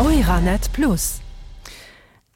Euranet Plus.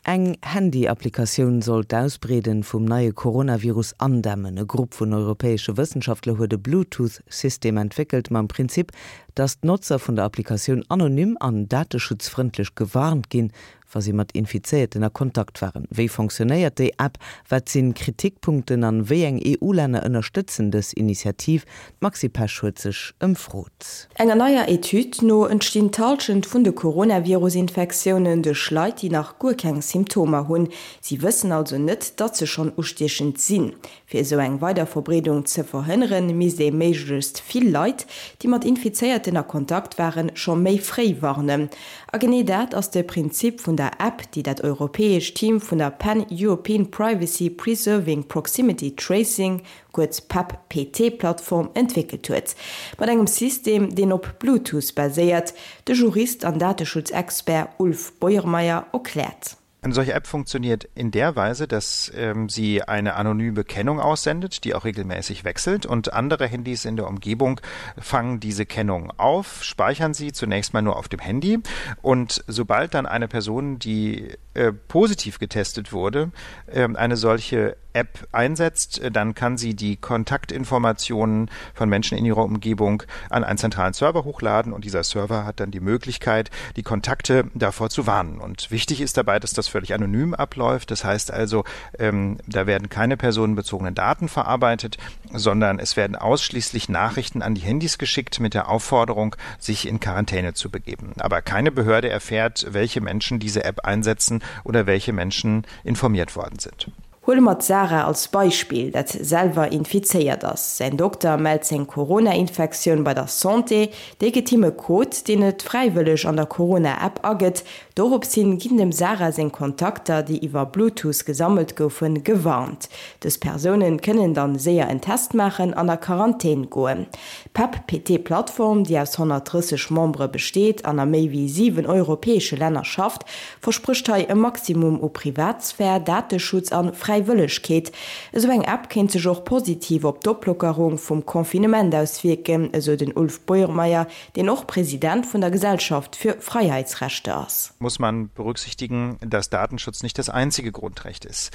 Eng Handy-Applikatioun soll d'Ausbreeden vum neie Coronavirus andämmen. E Grupp vun europäesche Wëssenschaftler huet e Bluetooth-System entwéckelt mam Prinzip, dass d'Notzer vun der Applikatioun anonym an dateschutzfrëndlech gewarnt ginn, wa si mat Infizéierten a Kontakt waren. Wéi fonctionnéiert déi App, wat sinn Kritikpunkten an wéi eng EU-Länner ënnerstëtzen dës Initiativ? D'Maxi Pesch huet sech ëmfrot. Enger neier Etüd no entstinn d'Hallschent vun de Coronavirus-Infektiounen duerch Leit, déi nach guer keng Symptomer hunn. Si wëssen also net, datt se schonn ustiechend sinn. Fir esou eng Weiderverbreedung ze verhënneren, misst ee méiglechst vill Leit, déi mat Infizéierten a Kontakt waren, scho méi fréi warnen. A genee dat ass de Prinzip vun der App, déi dat europäescht Team vun der Pan-European Privacy Preserving Proximity Tracing, kuerz PEPP-PT-Plattform, entwéckelt huet. Mat engem System, deen op Bluetooth baséiert. De Jurist an Dateschutzexpert Ulf Beuermeier erkläert. Eine solche App funktioniert in der Weise, dass ähm, sie eine anonyme Kennung aussendet, die auch regelmäßig wechselt und andere Handys in der Umgebung fangen diese Kennung auf, speichern sie zunächst mal nur auf dem Handy und sobald dann eine Person, die äh, positiv getestet wurde, äh, eine solche App einsetzt, äh, dann kann sie die Kontaktinformationen von Menschen in ihrer Umgebung an einen zentralen Server hochladen und dieser Server hat dann die Möglichkeit, die Kontakte davor zu warnen. Und wichtig ist dabei, dass das völlig anonym abläuft. Das heißt also, ähm, da werden keine personenbezogenen Daten verarbeitet, sondern es werden ausschließlich Nachrichten an die Handys geschickt mit der Aufforderung, sich in Quarantäne zu begeben. Aber keine Behörde erfährt, welche Menschen diese App einsetzen oder welche Menschen informiert worden sind. Huele mer d'Sarah als Beispill, dat selwer infizéiert ass. Säin Dokter mellt seng Corona-Infektioun bei der Santé. Déi gëtt him e Code, deen et fräiwëlleg an der Corona-App agëtt. Dorops hin ginn dem Sarah seng Kontakter, déi iwwer Bluetooth gesammelt goufen, gewarnt. Dës Persounen kënnen dann séier en Test maachen an a Quarantän goen. D'PEP-PT-Plattform, déi aus 130 Membere besteet an a méi wéi 7 europäesche Länner schafft, Versprécht hei e Maximum u Privatsphär, Dateschutz an Fräiwëllegkeet. Esou eng App kéint sech och positiv op d'Oplockerung vum Confinement auswierken, esou den Ulf Beuermeier, deen och President vun der Gesellschaft für Freiheitsrechte ass. Muss man berücksichtigen, dass Datenschutz nicht das einzige Grundrecht ist.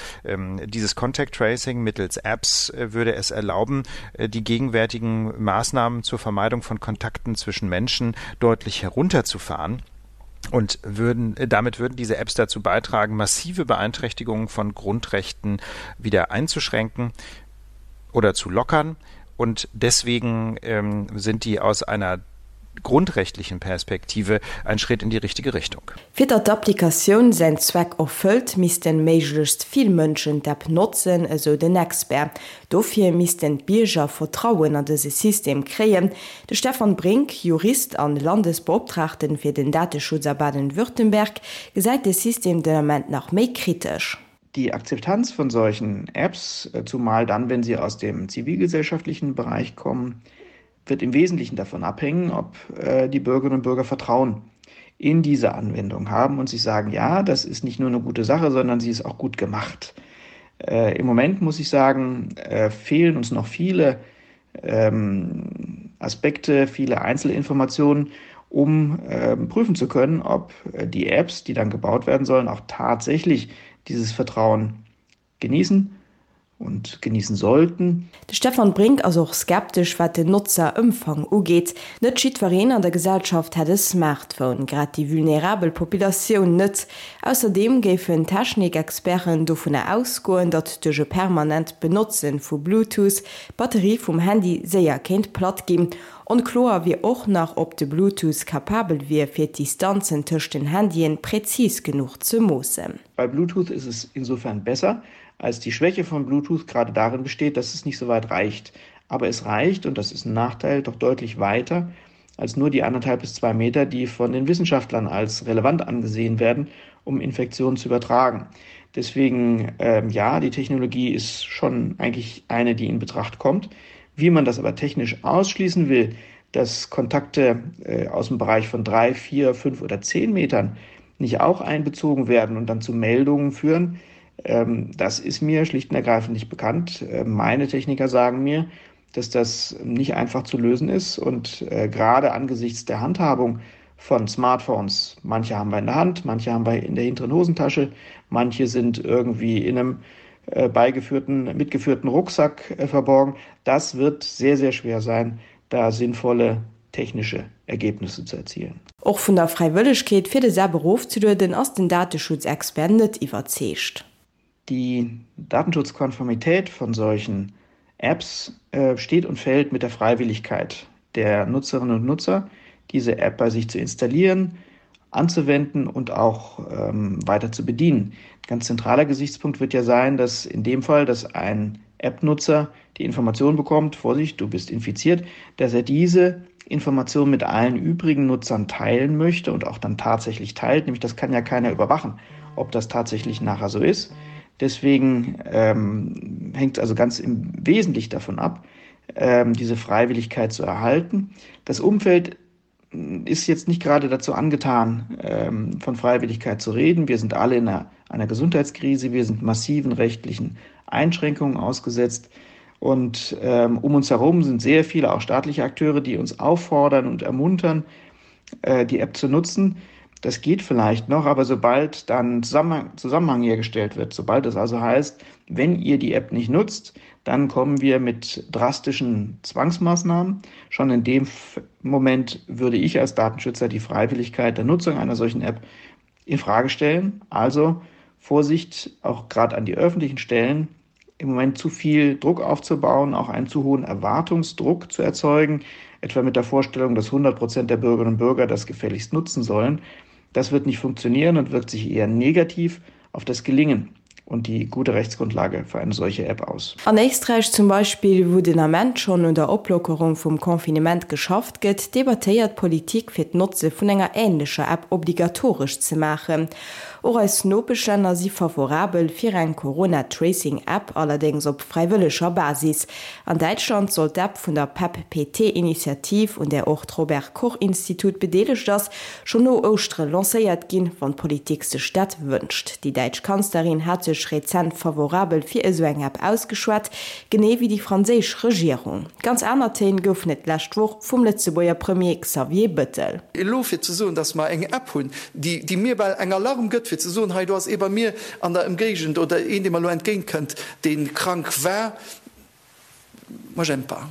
Dieses Contact Tracing mittels Apps würde es erlauben, die gegenwärtigen Maßnahmen zur Vermeidung von Kontakten zwischen Menschen deutlich herunterzufahren und würden äh, damit würden diese Apps dazu beitragen, massive Beeinträchtigungen von Grundrechten wieder einzuschränken oder zu lockern. Und deswegen ähm, sind die aus einer grundrechtlichen Perspektive ein Schritt in die richtige Richtung. Fir datt d'Applikatioun säin Zweck erfëllt, missten méiglechst vill Mënschen d'App notzen, esou den Expert. Dofir missten d'Bierger Vertrauen an dëse System kréien. De Stefan Brink, Jurist an Landesbeoptraagten fir den Dateschutz a Baden-Württemberg, gesäit de System den Ament nach méi kritesch. Die Akzeptanz von solchen Apps, zumal dann, wenn sie aus dem zivilgesellschaftlichen Bereich kommen, wird im Wesentlichen davon abhängen, ob äh, die Bürgerinnen und Bürger Vertrauen in diese Anwendung haben und sich sagen, ja, das ist nicht nur eine gute Sache, sondern sie ist auch gut gemacht. Äh, Im Moment muss ich sagen, äh, fehlen uns noch viele ähm, Aspekte, viele Einzelinformationen, um äh, prüfen zu können, ob äh, die Apps, die dann gebaut werden sollen, auch tatsächlich dieses Vertrauen genießen und genießen sollten. De Stefan Brink ass och skeptesch, wat den Notzerëmfang ugeet. Net jiddwereen an der Gesellschaft hätt e Smartphone, grad déi vulnerabel Populatioun net. Ausserdeem géifen Technikexperten dovunner ausgoen, datt duerch e permanent Benotze vu Bluetooth d'Batterie vum Handy séier kéint platt ginn. Onkloer wier och nach, ob de Bluetooth kapabel wier, fir d'Distanzen tëscht den Handyen präzis genuch ze moossen. Bei Bluetooth ist es insofern besser, als die Schwäche von Bluetooth gerade darin besteht, dass es nicht so weit reicht. Aber es reicht, und das ist ein Nachteil, doch deutlich weiter als nur die anderthalb bis zwei Meter, die von den Wissenschaftlern als relevant angesehen werden, um Infektionen zu übertragen. Deswegen ähm, ja, die Technologie ist schon eigentlich eine, die in Betracht kommt. Wie man das aber technisch ausschließen will, dass Kontakte äh, aus dem Bereich von drei, vier, fünf oder zehn Metern nicht auch einbezogen werden und dann zu Meldungen führen, ähm, das ist mir schlicht und ergreifend nicht bekannt. Äh, meine Techniker sagen mir, dass das nicht einfach zu lösen ist und äh, gerade angesichts der Handhabung. von Smartphones, manche haben wir in der Hand, manche haben wir in der hinteren Hosentasche, manche sind irgendwie in einem äh, beigeführten, mitgeführten Rucksack äh, verborgen. Das wird sehr, sehr schwer sein, da sinnvolle technische Ergebnisse zu erzielen. Och vun der Fräiwëllegkeet, fir des App erofzelueden, ass den Dateschutzexpert net iwwerzeegt. Die Datenschutzkonformität von solchen Apps äh, steht und fällt mit der Freiwilligkeit der Nutzerinnen und Nutzer, diese App bei sich zu installieren, anzuwenden und auch ähm, weiter zu bedienen. Ganz zentraler Gesichtspunkt wird ja sein, dass in dem Fall, dass ein App-Nutzer die Information bekommt, Vorsicht, du bist infiziert, dass er diese Information mit allen übrigen Nutzern teilen möchte und auch dann tatsächlich teilt. Nämlich das kann ja keiner überwachen, ob das tatsächlich nachher so ist. Deswegen ähm, hängt es also ganz im Wesentlichen davon ab, ähm, diese Freiwilligkeit zu erhalten. Das Umfeld ist jetzt nicht gerade dazu angetan, ähm, von Freiwilligkeit zu reden. Wir sind alle in einer, einer Gesundheitskrise, wir sind massiven rechtlichen Einschränkungen ausgesetzt. Und ähm, um uns herum sind sehr viele auch staatliche Akteure, die uns auffordern und ermuntern, äh, die App zu nutzen. Das geht vielleicht noch, aber sobald dann Zusammenhang, Zusammenhang hergestellt wird, sobald es also heißt, wenn ihr die App nicht nutzt, dann kommen wir mit drastischen Zwangsmaßnahmen. Schon in dem Moment würde ich als Datenschützer die Freiwilligkeit der Nutzung einer solchen App in Frage stellen. Also Vorsicht auch gerade an die öffentlichen Stellen, im Moment zu viel Druck aufzubauen, auch einen zu hohen Erwartungsdruck zu erzeugen, etwa mit der Vorstellung, dass 100 Prozent der Bürgerinnen und Bürger das gefälligst nutzen sollen. Das wird nicht funktionieren und wirkt sich eher negativ auf das Gelingen und die gute Rechtsgrundlage für eine solche App aus. An Éisträich zum Beispill, wou den Ament schonn un der Oplockerung vum Confinement geschafft gëtt, debattéiert d'Politik fir d'Notze vun enger änlecher App obligatoresch ze maachen. Och eis Nopeschlänner si favorabel fir eng Corona-Tracing-App, allerdéngs op fräiwëlleger Basis. An Däitschland soll d'App vun der PEP-PT-Initiativ, un där och d'Robert Koch-Institut bedeelegt ass, schonn no Ouschtere lancéiert ginn, wann d'Politik sech dat wënscht. Déi däitsch Kanzlerin hat sech rezent favorabel fir esou eng App ausgeschwat, genee wéi déi franséisch Regierung. Ganz aner Téin goufen et d'lescht Woch vum Lëtzebuerger Premier Xavier Bëttel. Elo fir ze soen, datt mer eng App hunn, déi, déi mir bal eng Alarm gëtt, fir ze soen, hei do ass ee bei mir an der Ëmgéigend oder een, dee mer elo entgéintkënnt, dee krank war, moi j'aime pas.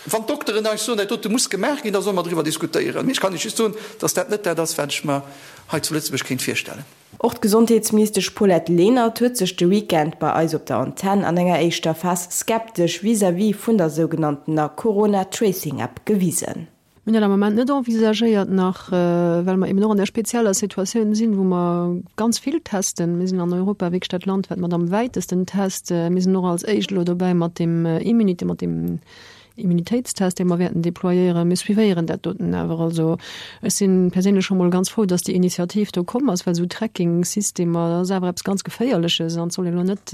Wann d'Dokteren eis soen, dat dote muss gemaach ginn, da solle mer driwwer diskutéieren. Mee ech kann Iech just soen, datt dat net dat ass, wat ech mer hei zu Lëtzebuerg kéint virstellen. Och d'Gesondheetsministesch Paulette Lenert huet sech de Weekend bei eis op der Antenn an enger éischter Phas skeptesch vis-à-vis vun der sougenanntener Corona-Tracing-App gewisen. Mir hunn dat am Moment net envisagéiert nach, well mer eben och an där spezieller Situatioun sinn, wou mer ganz vill testen. Mir sinn an Europa wierklech dat Land, wat mat am wäitesten test. Mir sinn och als éischt elo dobäi mat deem Immunité, mat deem Immunitéitstest, dee mer wäerten déployéieren. Mir suivéieren dat doten awer. Also ech si perséinlech scho mol ganz frou, dass déi Initiativ do komm ass, well esou Tracking-Systemer, dat ass awer eppes ganz Geféierleches an et soll een elo net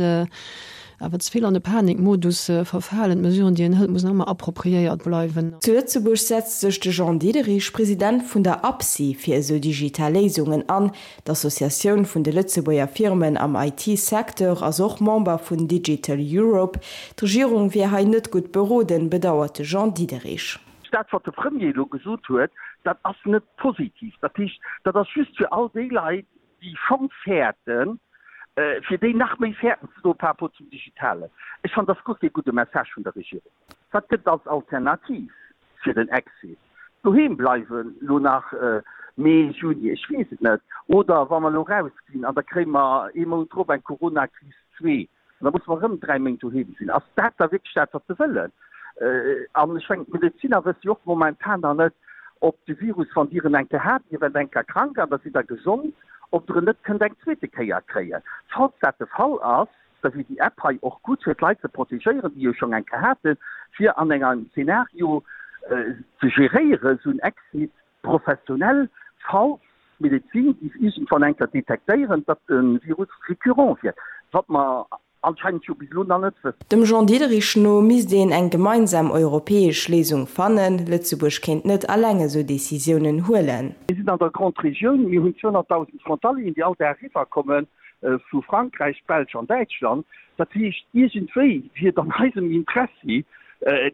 awer ze vill an de Panikmodus verfalen. D'Mesuren, déi een hëlt, mussen ëmmer appropriéiert bleiwen. Zu Lëtzebuerg setzt sech de Jean Diederich, President vun der APSI, fir esou digital Léisungen an. D'Associatioun vun de Lëtzebuerger Firmen am IT-Secteur ass och Member vun Digital Europe. D'Regierung wier hei net gutt beroden, bedauert de Jean Diederich. Dat, wat de Premier elo gesot huet, dat ass net positiv. Dat heescht, dat ass just fir all déi Leit, déi schonn fäerten, fir déi nach méi fäerten ze doen par rapport zum Digitalen. Ech fannen, dat ass guer kee gudde Message vun der Regierung. Wat gëtt et als Alternativ fir den Exit? Doheem bleiwen elo nach Mee, Juni, ech weess et net. Oder wa mer elo rausginn an da kréie mer ee Mount drop eng Coronakris zwee an da musse mer erëm 3 Méint doheem sinn. Ass dat da wierklech dat, wat se wëllen? An ech mengen, d'Medeziner wësse jo och momentan nach net, ob de Virus, wann Dir en eng Kéier hat, Dir waart eng Kéier krank an da sidd Der gesond, ob Der en net kënnt eng zweete Kéier kréien. Falls dat de Fall ass, da wier déi App hei och gutt, fir d'Leit ze protegéieren, déi jo schonn eng Kéier haten, fir an engem Zeenario ze geréieren, esou en Exit professionell, falls d'Medezin géif iergendwann eng Kéier detektéieren, datt de Virus récurrent wier, wat mer anscheinend jo bis elo nach net wëssen. Dem Jean Diederich no misst een eng gemeinsam europäesch Léisung fannen. Lëtzebuerg kéint net alleng esou Decisiounen huelen. Mir sinn an der Grande Regioun, mir hunn 200.000 Frontalieren, déi all Dag eriwwerkomme vu Frankräich, Belsch an Däitschland. Dat heescht, iergendwéi wier et an eisem Interessi,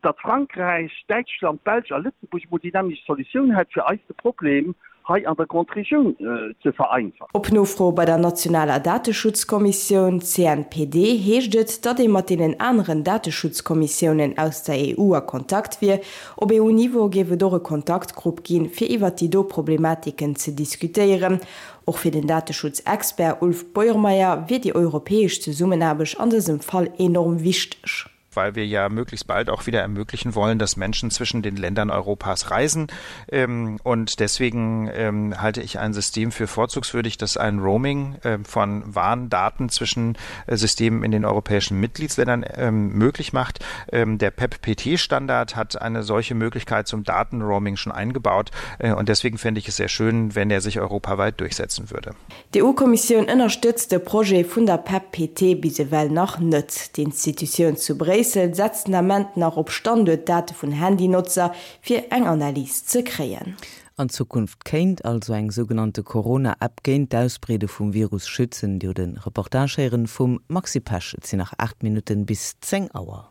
datt Frankräich, Däitschland, d'Belsch a Lëtzebuerg emol déi nämmlecht Solutioun hätt, fir eis de Problem hei an der Grande Regioun ze vereinfachen. Op Nofro bei der nationaler Dateschutzkommissioun, CNPD, heescht et, datt ee mat deenen aneren Dateschutzkommissiounen aus der EU a Kontakt wier. Op EU-Niveau géif et och e Kontaktgrupp ginn, fir iwwert déi do Problematiken ze diskutéieren. Och fir den Dateschutzexpert Ulf Beuermeier wier déi europäesch Zesummenaarbecht an dësem Fall enorm wichteg. Weil wir ja möglichst bald auch wieder ermöglichen wollen, dass Menschen zwischen den Ländern Europas reisen. Ähm, und deswegen ähm, halte ich ein System für vorzugswürdig, das ein Roaming ähm, von Warndaten zwischen äh, Systemen in den europäischen Mitgliedsländern möglich macht. Der PEP-PT-Standard hat eine solche Möglichkeit zum Datenroaming schon eingebaut. Äh, und deswegen fände ich es sehr schön, wenn er sich europaweit durchsetzen würde. D'EU-Kommissioun ënnerstëtzt de Projet vun der PEP-PT bis ewell nach net. D'Institutioun zu Bréissel setzt den Ament nach op Standuertdate vun Handynotzer, fir eng Analys ze kréien. An Zukunft kéint also eng sougenannte Corona-App géint d'Ausbreede vum Virus schützen. Dir hutt e Reportage héieren vum Maxi Pesch. Et sinn nach 8 Minutten bis 10 Auer.